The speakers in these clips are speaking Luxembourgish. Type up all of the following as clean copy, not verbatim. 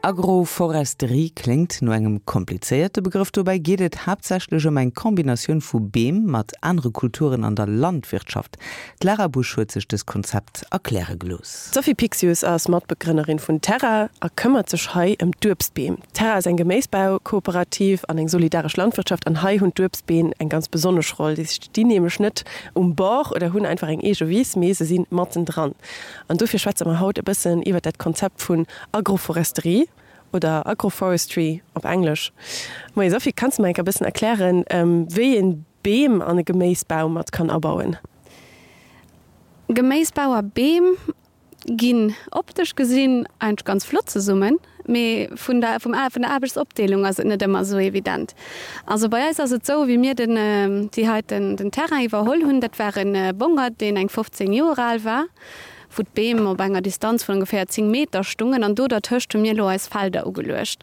Agroforesterie kléngt no engem komplizéierte Begrëff. Dobäi geet et haaptsächlech ëm eng Kombinatioun vu Beem mat anere Kulturen an der Landwirtschaft. D'Lara Busch huet sech dëst Konzept erkläre gelooss. D'Sophie Pixius ass Matbegrënnerin vun Terra a këmmert sech hei ëm d'Uebstbeem. Terra ass eng Geméisbaukooperativ an eng solidaresch Landwirtschaft an hei hunn d'Uebstbeem eng ganz besonnesch Roll. Déi stinn nämlech net um Bord oder hunn einfach eng eege Wiss, mee se si mattendran. An dofir schwätze mer haut e bëssen iwwert dat Konzept vun Agroforesterie oder Agroforestry op Englesch. Moie Sophie, kanns de mer enk e bëssen erklären, wéi een Beem an e Geméisbau mat kann abauen? Geméisbau a Beem ginn optesch gesinn eigentlech ganz flott zesummen, mee vun der vum vun der Aarbechtsopdeelung ass et net ëmmer esou evident. Also bei eis ass et esou, wéi mir den déi heiten den Terrain iwwerholl hunn, dat war e Bongert, deen eng 15 Joer al war, wou d'Beem op enger Distanz vun ongeféier 10 Meter stungen an do dertëscht hu mir elo eis Felder ugeluecht.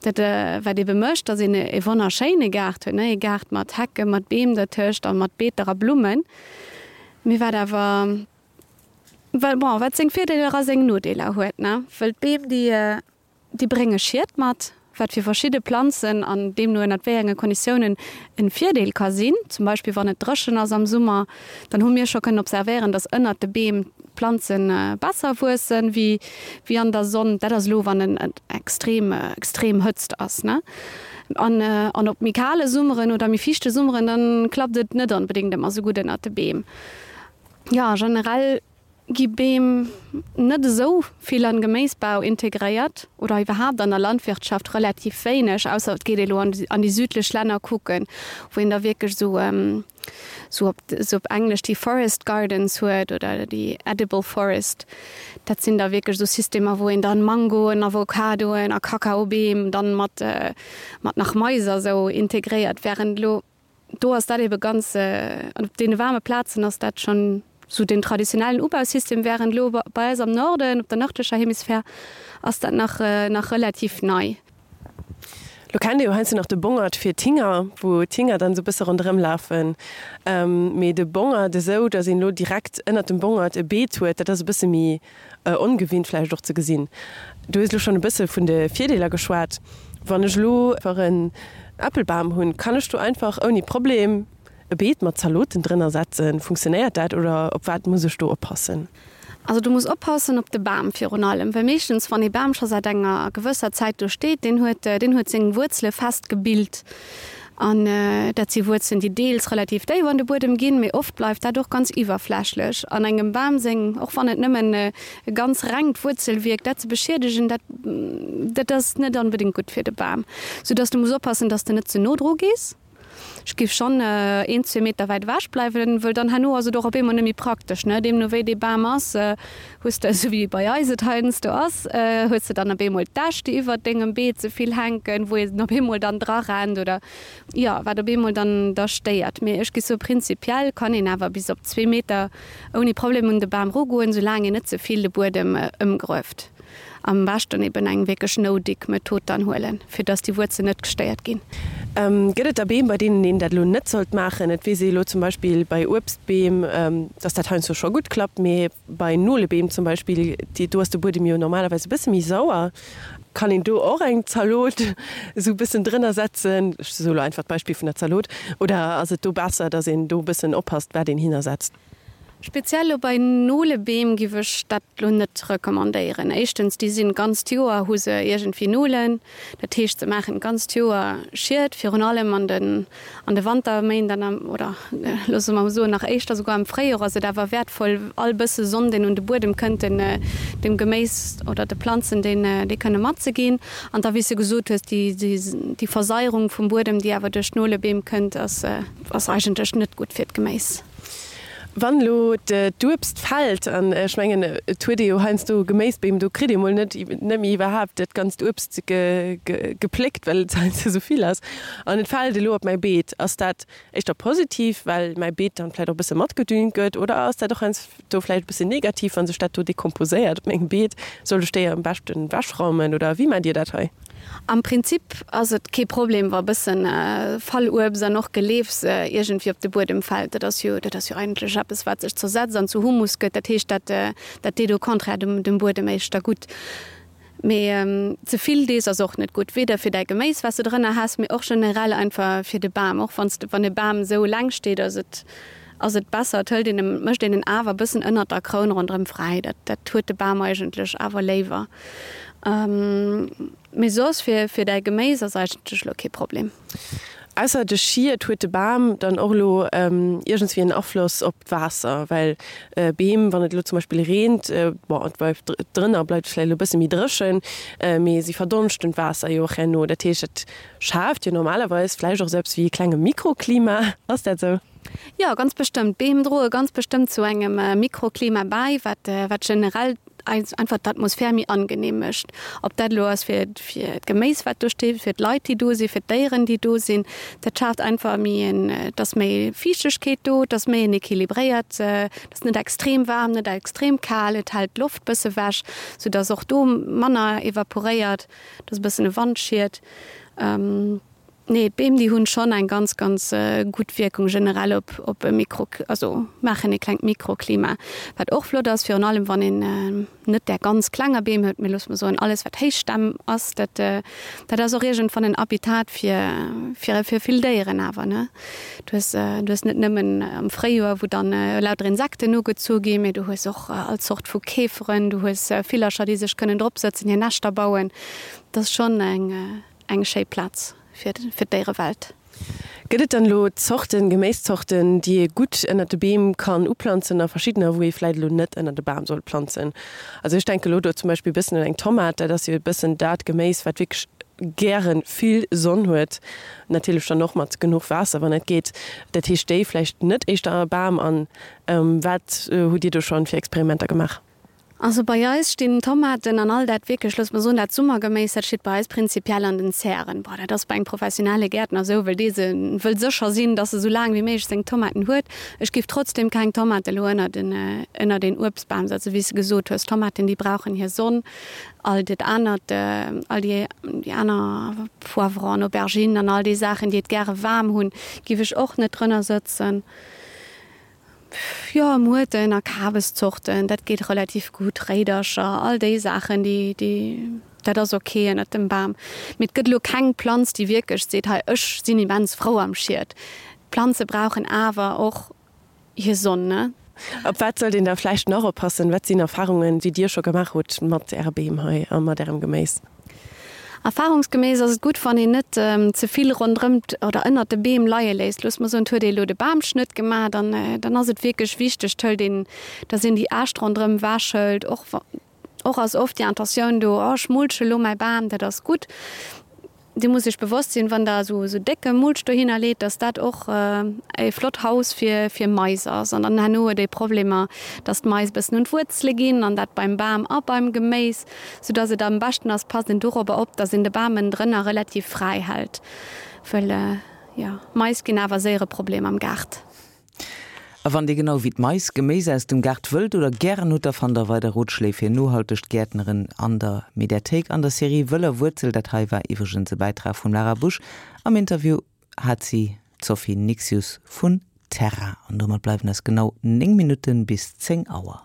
Dat wat ebe mécht, datt een e wonnerschéine Gaart huet, ne, ee Gaart mat Hecken, mat Beem dertëscht a mat Beeter a Blummen. Mee wat awer, bon, wat seng Virdeeler a seng Nodeeler huet, ne, wëll d'Beem déi Déi brénge Schied mat, wat fir verschidde Planzen an deemno ënnert wéi enge Konditiounen en Virdeel ka sinn. Zum Beispill wann et dréchen ass am Summer, dann hu mir scho kënnen observéieren, dass ënnert de Beem d'Planze besser wuessen wéi wéi an der Sonn. Dat ass elo wann en extrem extrem Hëtzt ass, ne? An an op méi kale Summeren oder méi fiichte Summeren, dann klappt et net onbedéngt ëmmer sou gutt ënnert de Beem. Jo, generell Gi Beem net esou vill an Geméisbau integréiert oder iwwerhaapt an der Landwirtschaft relativ wéineg, ausser et geet ee lo an déi südlech Länner kucken, wou een da wierklech esou esou op esou op Englesch déi Forest Gardens huet oder déi Edible Forest. Dat sinn da wierklech esou Systemer, wou een dann Mangoen, Avocadoen a Kakaobeem dann mat mat nach Mais a sou integréiert, wärend elo Do ass dat ebe ganz, an op deene waarme Plazen ass dat schonn esou den traditionellen Ubausystem, wärend elo bei eis am Norden, op der nërdlecher Hemisphär, ass dat nach nach relativ nei. Lo kennt ee jo heiansdo nach de Bongert fir d'Hinger, wou d'Hinger dann esou e bësse ronderëm lafen. Mee de Bongert esou, datt een elo direkt ënnert dem Bongert e Beet huet, dat ass e bësse méi ongewinnt vläicht och ze gesinn. Du hues elo schonn e bësse vun de Virdeeler geschwat. Wann ech elo einfach en Äppelbam hunn, kann ech do einfach ouni Problem e Beet mat Zaloten drënner setzen? Funktionéiert dat oder op wat muss ech do oppassen? Also du muss oppassen op de Bam virun allem, well meeschtens wann ee Bam scho säit enger gewësser Zäit do steet, deen huet deen huet seng Wuerzele fest gebilt An dat si Wuerzelen, déi deels relativ déif an de Buedem ginn, mee oft bleift dat och ganz iwwerflächlech. An engem Bam seng, och wann et nëmmen e ganz rengt Wuerzelwierk, dat ze beschiedegen, dat dat ass net onbedéngt gutt fir de Bam. Soudass de muss oppassen, dass de net ze no dru gees. Ech géif schonn een, zwee Meter wäit ewech bleiwen, wëll dann herno ass et och op eemol net méi praktesch, ne? Deemno wéi dee Bam ass, Hues de, esou wéi bei eis et heiansdo ass, hues de dann op eemol d'Äscht, déi iwwert dengem Beet ze vill hänken, wou een op eemol dann dra rennt oder jo, wat op eemol dann da stéiert. Mee ech gi soe prinzipiell kann een awer bis op zwee Meter ouni Problem un de Bam erugoen, soulaang een net ze vill de Buedem ëmgrueft. Am beschten eben eng wierklech No-Dig-Method dann huelen, fir dass déi Wuerzelen net gestéiert ginn. Gëtt et da Beem, bei deenen een dat elo net sollt maachen? Et weess ee elo zum Beispill bei Uebstbeem, dass dat heiansdo scho gutt klappt, mee bei Nolebeem zum Beispill, déi, do ass de Buedem jo normalerweis e bësse méi sauer. Kann een do och eng Zalot esou e bëssen drënner setzen? Ech soe elo einfach d'Beispill vun der Zalot. Oder ass et do besser, dass een do e bëssen oppasst, wat een hinnersetzt? Speziell lo bei Nolebeem giff ech dat lo net recommandéieren. Éischtens, déi sinn d'ganzt Joer hu se iergendwéi Nolen, dat heescht se maachen d'ganzt Joer Schied, virun allem an den an de Wanterméint an am, oder loosse mer soen nach éischter souguer am Fréijoer ass et awer wäertvoll all bësse Sonn deen un de Buedem kënnt den dem Geméis oder de Planzen deen dee kënne matzeginn. An da wéi s de gesot hues, déi déi Versaierung vum Buedem déi awer duerch d'Nolebeem kënnt ass ass eigentlech net gutt fir d'Geméis. Wann elo d'Uebst fällt, an ech mengen et huet ee jo heiansdo Geméisbeem, do kritt ee mol net net méi iwwerhaapt dat ganzt Uebst gepléckt, well et heiansdo esou vill ass, an et fält elo op mäi Beet, ass dat éischter positiv, well mäi Beet dann vläicht och e bësse matgedüngt gëtt, oder ass dat och heiansdo vläicht e bëssen negativ, wa sech dat do dekomposéiert op mengem Beet? Sollt ech déi am beschten ewechraumen oder wéi maacht Dir dat hei? Am Prinzip ass et kee Problem, wa bëssen Falluebst an och Geleefs iergendwéi op de Buedem fält. Dat ass jo, dat ass jo eigentlech eppes, wat sech zersetzt an zu Humus gëtt. Dat heescht, dat, dat deet au contraire dem, dem Buedem éischter gutt. Mee ze vill dees ass och net gutt, weder fir däi Geméis wat s de drënner has, mee och generell einfach fir de Bam. Och wann s de, wann e Bam esou eleng steet, ass et ass et besser, et hëlt een em, mécht een en awer e bëssen ënnert der Kroun ronderëm fräi. Dat dat huet de Bam eigentlech awer léiwer. Mee soss fir fir däi Geméis ass eigentlech elo kee Problem. Ausser de Schied huet de Bam dann och elo iergendswéi en Afloss op d'Waasser, well Beem, wann et elo zum Beispill reent, bon et bleift drënner bleift et vläicht elo e bësse méi dréchen, mee si verdonschten d'Waasser jo och herno. Dat heescht, dat schaaft jo normalerweis vläicht och esou eppes wéi e klenge Mikroklima. Ass dat esou? Jo, ganz bestëmmt. D'Beem droe ganz bestëmmt zu engem Mikroklima bäi, wat wat generell eis einfach d'Atmosphär méi angenehm mécht. Ob dat elo ass fir fir d'Geméis wat do steet, fir d'Leit déi do sinn, fir d'Déieren déi do sinn, dat schaaft einfach méi en, et ass méi Fiichtegkeet do, et ass méi en équilibréiert, et ass net extrem waarm, net extrem kal, et hält d'Loft bësse wech, sou dass och do manner evaporéiert, et ass e bëssen e Wandschiet. Nee, d'Beem déi hunn schonn eng ganz ganz gutt Wierkung generell op op e Mikro, also maachen e klengt Mikroklima, wat och flott ass, virun allem wann een net där ganz klenger Beem huet, mee loosse mer soen alles wat Héichstämm ass, dat dat ass och iergendwann en Habitat fir fir fir vill Déieren awer ne. Du hues du hues net nëmmen am Fréijoer wou dann lauter Insekten ugezu ginn, mee du hues och all Zort vu Käferen, du hues Villercher déi sech kënnen drop sëtzen, hir Näschter bauen, dat ass schonn eng. Eng schéi Plaz fir d'Déierewelt. Gëtt et dann elo Zorten, Geméiszorten, déi ee gutt ënnert de Beem kann uplanzen a verschiddener, wou ee vläit elo net ënnert e Bam soll planzen? Also ech denke elo do zum Beispill e bëssen un eng Tomat, dat ass jo e bëssen dat Geméis, wat wierklech gäre vill Sonn huet, natierlech dann och mat genuch Waasser, wann et geet. Dat heescht déi vläicht net éischter a Bam. An wat hutt Dir do schonn fir Experimenter gemaach? Also bei eis stinn d'Tomaten an all dat wierklech, looss mer soen, dat Summergeméis, dat steet bei eis prinzipiell an den Zären. Bon, dat ass bei engem professionelle Gäertner esou, well dee se wëll sécher sinn, dass e sou laang wéi méiglech seng Tomaten huet. Ech géif trotzdem keng Tomate elo ënnert en, ënnert een Uebstbam setzen, wéi s de gesot hues. Tomaten, déi brauchen hir Sonn. All dat anert, all déi, déi aner Poivron, Auberginen an all déi Saachen, déi et gäre waarm hunn, géif ech och net drënner sëtzen. Jo, Muerten a Kabeszorten, dat geet relativ gutt, Réidercher, all déi Saachen, déi, déi, dat ass ok ënnert dem Bam. Mee et gëtt elo keng Planz, déi wierklech seet, hei ech sinn immens frou am Schiet. D'Planze brauchen awer och hir Sonn, ne? Op wat sollt een da vläicht nach oppassen? Wat sinn Erfarungen, déi Dir scho gemaach hutt mat Äre Beem hei a mat Ärem Geméis? Erfahrungsgemäss ass et gutt, wann een net ze vill ronderëm oder ënnert de Beem leie léisst. Loosse mer soen, et huet ee elo de Bamschnëtt gemaach, dann, dann ass et wierklech wichteg, d'hëlt een, dass een déi Äscht ronderëm ewechhëlt. Och, och ass oft déi Intentioun do, oh ech mulche elo mäi Bam, dat ass gutt. Dir musst Iech bewosst sinn, wann Der esou décke Mulch dohinner leet, dass dat och e flott Haus fir fir Mais ass. An dann herno huet ee Problemer, dass d'Mais e bëssen un d'Wuerzele ginn an dat beim Bam a beim Geméis, soudass et am beschten ass, passt een dorobber op, dass een de Bam ënnendrënner relativ fräi hält, wëll jo, Mais ginn awer séier e Problem am Gaart. A wann Dir genau wéi d'Mais Geméis aus dem Gaart wëllt oder gären hutt, da fannt der weider Rotschléi fir nohaltegt Gäertneren an der Mediathéik an der Serie Wëller Wuerzel. Dat hei war iwwregens e Bäitrag vum Lara Busch. Am Interview hat si d'Sophie Nixius vun Terra. An domat bleiwen eis genau 9 Minutten bis 10 Auer.